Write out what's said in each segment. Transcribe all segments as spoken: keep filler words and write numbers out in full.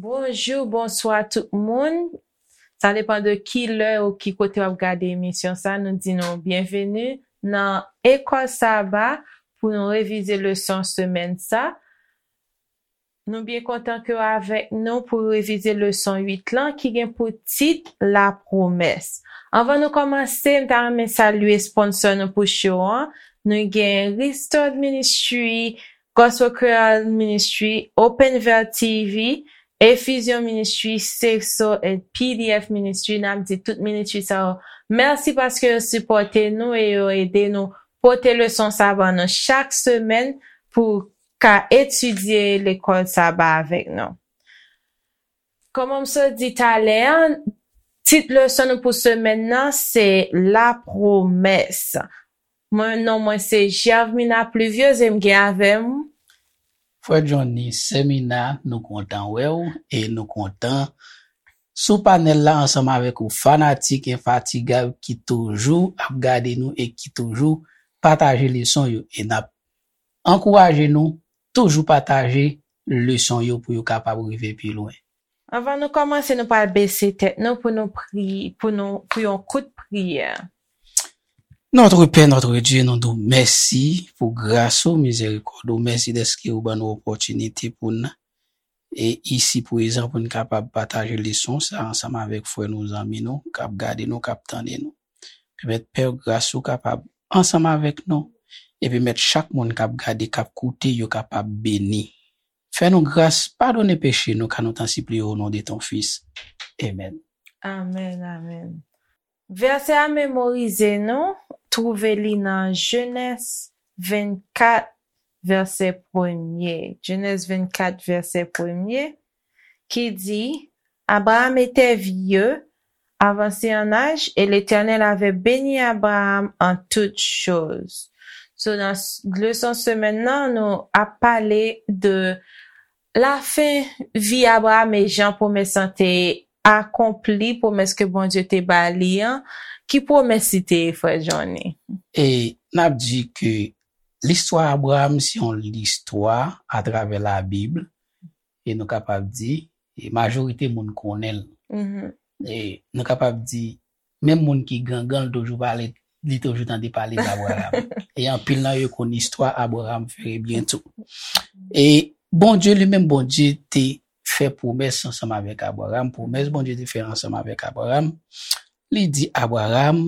Bonjou, bonswa tout moun. Sa depann de ki lè ou ki kote w ap gade emisyon sa. Nou di nou byenveni nan Ekòl Saba pou nou revize leson semèn sa. Nou byen kontan ke w avèk nou pou revize leson uit lan ki gen pou tit Lapwomès. Anvan nou kòmanse, m ta renmen salye sponsò nou pou show an. Nou gen Restored Ministry, Gospel Creole Ministry, Open Veil T V, Efizyon Ministry, Safe Soul, and P D F Ministry. N ap di tout ministry sa yo mèsi paske yo sipòte nou e yo ede nou pote leson sa ban nou chak semèn pou ka etidye lekòl saba avèk nou. Kòman m sot di talè a, tit leson nou pou semèn nan se Lapwomès. Mwen, non mwen se Gervmina Pluviose e m gen avè m. Frè Johnny, Sè Mina, nou kontan wè w e nou kontan sou panèl la ansanm avèk ou fanatik enfatigab ki toujou ap gade nou e ki toujou pataje leson yo e n ap ankouraje nou toujou pataje leson yo pou yo kapab rive pi lwen. Anvan nou kòmanse, nou pral bese tèt nou pou nou pri pou nou pou yon kout priyè. Notre Père, notre Dieu, nou di w mèsi pou gras ou, mizerikòd ou. Mèsi dèske ou ban nou opòtinite pou n e isi prezan pou n kapab pataje leson sa ansanm avèk frè nou, zanmi nou k ap gade nou, k ap tande nou. Pèmèt Pè gras ou kapab ansanm avèk nou e pèmèt chak moun k ap gade, k ap koute yo kapab beni. Fè nou gras, padone peche nou, ka nou tan sipliye o non de ton Fis. Amen. Amen, amen. Vèsè a memorize nou, twouve li nan Jenèz vennkat, vèsè premye. Jenèz vennkat, vèsè premye, ki di, Abraham était vieux, avancé en âge, et l'Éternel avait béni Abraham en toutes choses. So, nan leson semèn nan, nou ap pale de lafen vi Abraham e jan pwomès lan te akonpli, pwomès ke Bondye te ba li an. Ki pwomès li te ye, frè Johnny? E n ap di ke listwa Abraham se yon listwa atravè Labib, e nou kapab di, e majorite moun konnen l. E nou kapab di, menm moun ki gangan, li toujou pale, li toujou tande pale d Abraham. E anpil nan yo konn istwa Abraham fè byen tou. E Bondye li menm, Bondye te fè pwomès ansanm avèk Abraham. Pwomès Bondye te fè ansanm avèk Abraham, li di, Abraham,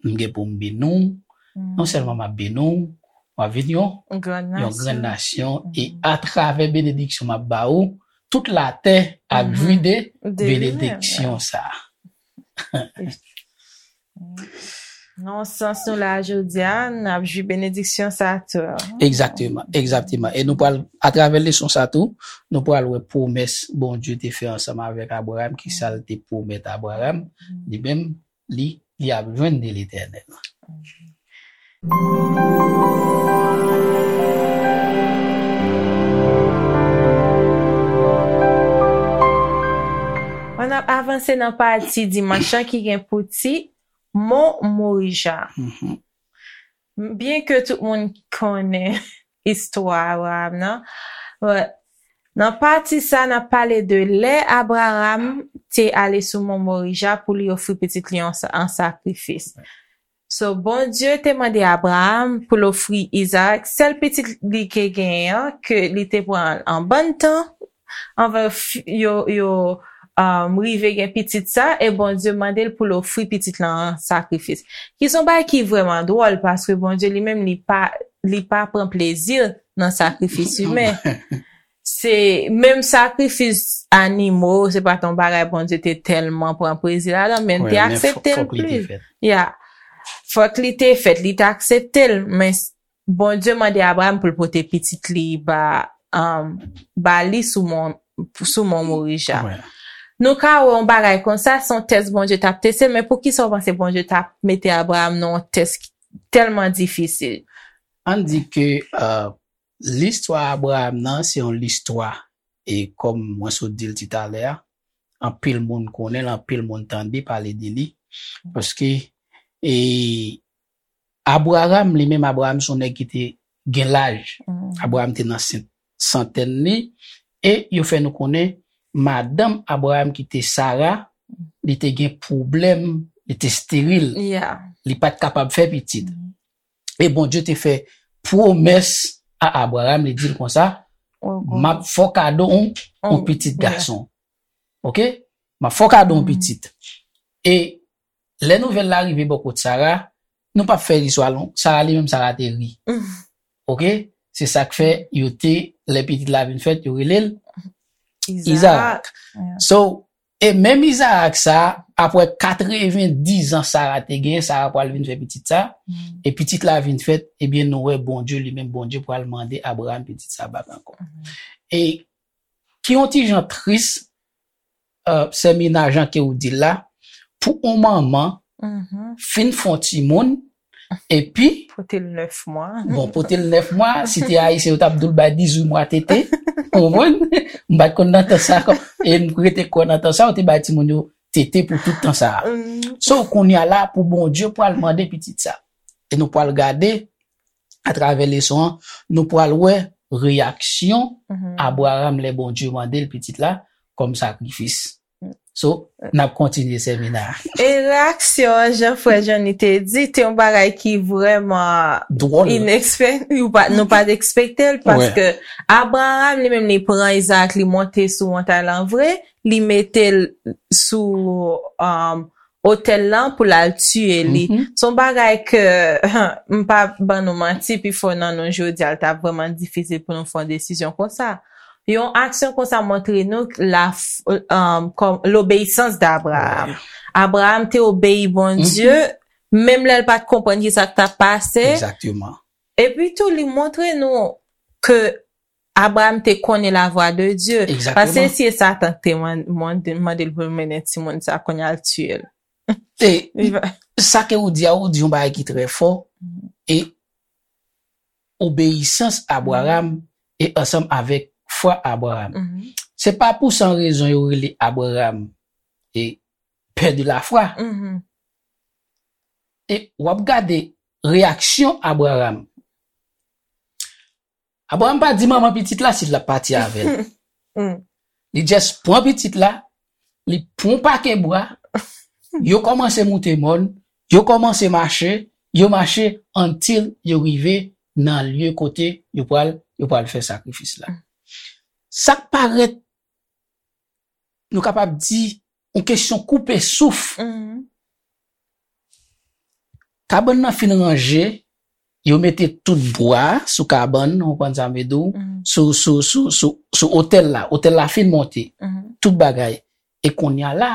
m gen pou m beni w, non sèlman m ap beni w, w ap vin yon yon grann nasyon, e atravè benediksyon m ap ba ou, tout latè ap jwi de benediksyon sa a. Nan yon sans, nou la jodi a, n ap jwi benediksyon sa tou. Egzakteman, egzakteman. E nou pral, atravè leson sa tou, nou pral wè pwomès Bondye te fè ansanm avèk Abraham, ki sa l te pwomèt Abraham, li menm, li, li ap jwenn de Letènèl. N ap avanse nan pati dimanch lan ki gen pou tit Mon Morija. Byenke tout moun konnen istwa Abraham nan, nan pati sa, n ap pale de lè Abraham te ale sou Mon Morija pou li ofri pitit li an sakrifis. So, Bondye te mande Abraham pou l ofri Izarak, sèl pitit li te genyen an, ke li te pran an bann tan anvan yo, yo um, rive gen pitit sa, e Bondye mande l pou l ofri pitit lan an sakrifis. Ki se yon bagay ki vrèman dwòl, paske Bondye li menm, li pa, li pa pran plezi nan sakrifis imen. Se menm sakrifis animo, se pa t yon bagay Bondye te tèlman pran plezi ladan, men l te aksepte l plis. Ya. Fòk li te fèt, li te aksepte l, men Bondye mande Abraham pou l pote pitit li ba, um, ba li sou mon, sou mon Morija. Nou ka wè yon bagay konsa, se yon tès Bondye t ap teste, men poukisa w panse Bondye t ap mete Abraham nan yon tès tèlman difisil? Ann di ke uh, listwa Abraham nan, se yon listwa, e kòm mwen sot di l ti talè a, anpil moun konnen l, anpil moun tande pale de li, paske e Abraham, li menm, Abraham se yon nèg ki te gen laj. Abraham te nan santèn li, e yo fè nou konnen madanm Abraram ki te Sara, li te gen pwoblèm, li te esteril. Yeah. Li pa t kapab fè pitit. E Bondye te fè pwomès a Abraram, li di l konsa, m ap fè w kado yon, yon pitit gason. Oke? M ap fè w kado yon pitit. E lè nouvèl la rive bò kot Sara, nou p ap fè listwa long, Sara li menm, Sara te ri. Oke? Se sa k fè yo te, lè pitit la vin fèt, yo rele l Izarak. So, e menm Izarak sa, apre katrevendiz an Sara te gen, Sara pral vin fè pitit sa, e pitit la vin fèt, ebyen nou wè Bondye li menm, Bondye pral mande Abraram pitit sa bak ankò. E ki yon ti jan tris, uh, Sè Mina, jan ke ou di l la, pou yon manman fin fè yon timoun, epi Pote l nèf mwa. Bon, pote l nèf mwa, si te Ayisyen, yo t ap di w l bay dizuit mwa tete. Konprann? M pa t konn nan tan sa a, e m rete kwè nan tan sa a, yo te bay timoun yo tete pou tout tan sa a. So, kounye a la, pou Bondye pral mande pitit sa. E nou pral gade, atravè leson an, nou pral wè reyaksyon Abraram lè Bondye mande l pitit la kòm sakrifis. So, n ap kontinye Sè Mina. E reyaksyon an, jan frè Johnny te di, te yon bagay ki vrèman Dwòl. Inekspek, nou pa, nou pa t ekspekte l, paske Abraram li menm li pran Izarak, li monte sou montay lan vre, li mete l sou um, otèl lan pou l al tiye li. Se yon bagay ke, m pa ban nou manti, pifò nan nou jodi a, l t ap vrèman difisil pou nou fè yon desizyon konsa. Yon aksyon konsa montre nou la, um, kòm, lobeyisans d'Abraham. Abraham te obeyi Bondye, menm lè l pa t konprann ki sa k t ap pase. Egzakteman. Epi tou, li montre nou ke Abraham te konnen la voix de Dieu. Egzakteman. Paske si e Satan k te man- mande mande l pou l mennen timoun sa, kounye a l tiye l. E sa ke ou di a, ou di yon bagay ki trè fò. E obeyisans Abraham e ansanm avèk fwa Abraham. Se pa pou san rezon yo rele Abraham e pè de la fwa. E w ap gade reyaksyon Abraham. Abraham pa di manman pitit la si l ap pati avè l. Li just pran pitit la, li pran yon pake bwa, yo kòmanse moute mòn, yo kòmanse mache, yo mache until yo rive nan lye kote yo pral, yo pral fè sakrifis la. Sa k parèt, nou kapab di, yon kesyon koupe souf. Kabann nan fin ranje, yo mete tout bwa sou kabann, ou konprann sa m vle di w, sou, sou, sou, sou, sou otèl la. Otèl la fin monte. Tout bagay. E kounye a la,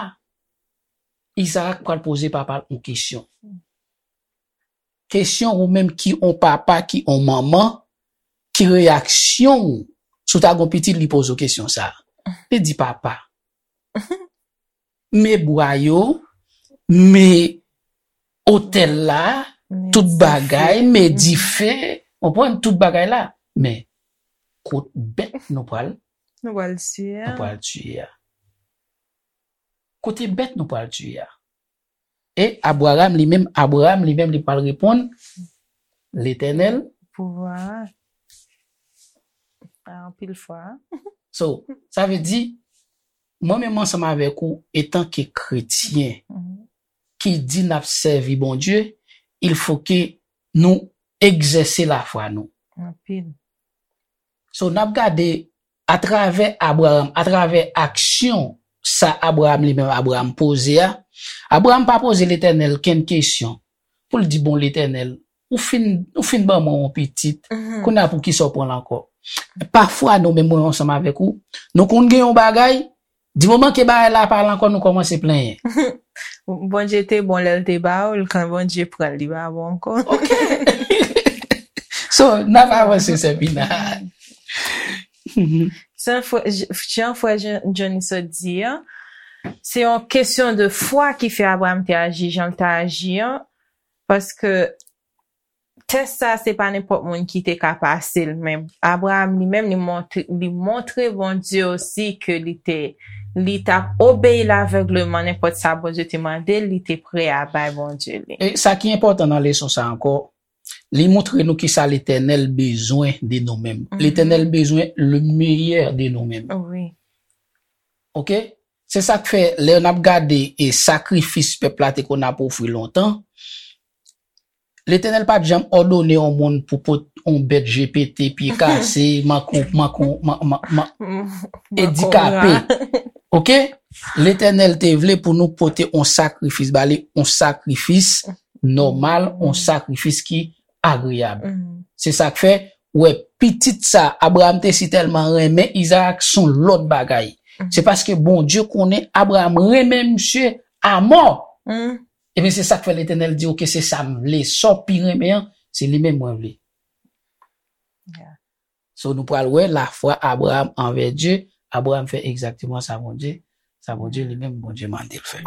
Izarak pral poze papa l yon kesyon. Kesyon ou menm ki yon papa, ki yon manman, ki reyaksyon w si w ta gon pitit li poze w kesyon sa? Li di, papa, men bwa yo, men otèl la, tout bagay, men dife, konprann, tout bagay la. Men kot bèt nou pral, Nou pral tiye nou a. Pral tiye a? Kote bèt nou pral tiye a? E Abraham li menm, Abraham li menm li pral reponn, Letènèl. Pouvwa. Anpil fwa. So, sa vle di, mwen menm ansanm avèk ou, etanke kretyen, ki di n ap sèvi Bondye, il faut que nou egzèse lafwa nou. Anpil. So, n ap gade atravè Abraham, atravè aksyon sa Abraham li menm Abraham poze a, Abraham pa poze Letènèl kenn kesyon pou l di, bon, Letènèl, ou fin, ou fin ban mwen yon pitit, kounye a pou kisa w pran l ankò? Pafwa nou menm mwen ansanm avèk ou, nou konn gen yon bagay, di moman ke bagay la pa la ankò, nou kòmanse plenyen. Bondye te bon lè l te ba w l, kan Bondye pran l, li pa bon ankò. Ok. So, n ap avanse, Sè Pina. Jan frè Johnny sot di an, se yon kesyon de fwa ki fè Abraham te aji jan l te aji an, paske tès sa se pa nenpòt moun ki te ka pase l, men Abraham li menm li montre, li montre Bondye osi ke li te, li t ap obeyi lavègleman, nenpòt sa Bondye te mande l, li te prè a bay Bondye li. E sa ki enpòtan nan leson sa ankò, li montre nou kisa Letènèl bezwen de nou menm. Letènèl bezwen le meilleur de nou menm. Wi. Ok? Se sa k fè, lè n ap gade e sakrifis pèp la te konn ap ofri lontan, Letènèl pa t janm òdone yon moun pou pot yon bèt G P T, pye kase, manko, manko, man, man, man, edikape. Ok? Letènèl te vle pou nou pote yon sakrifis ba li, yon sakrifis nòmal, yon sakrifis ki agreyab. Se sa k fè, wè, pitit sa, Abraram te si tèlman renmen Izarak, se yon lòt bagay. Se paske Bondye konnen Abraram renmen misye amò. Ebyen, se sa k fè Letènèl di, ok, se sa m vle. Sa w pi renmen an, se li menm mwen vle. So, nou pral wè lafwa Abraram anvè Dye. Abraram fè egzakteman sa Bondye, sa Bondye li menm, Bondye mande l fè.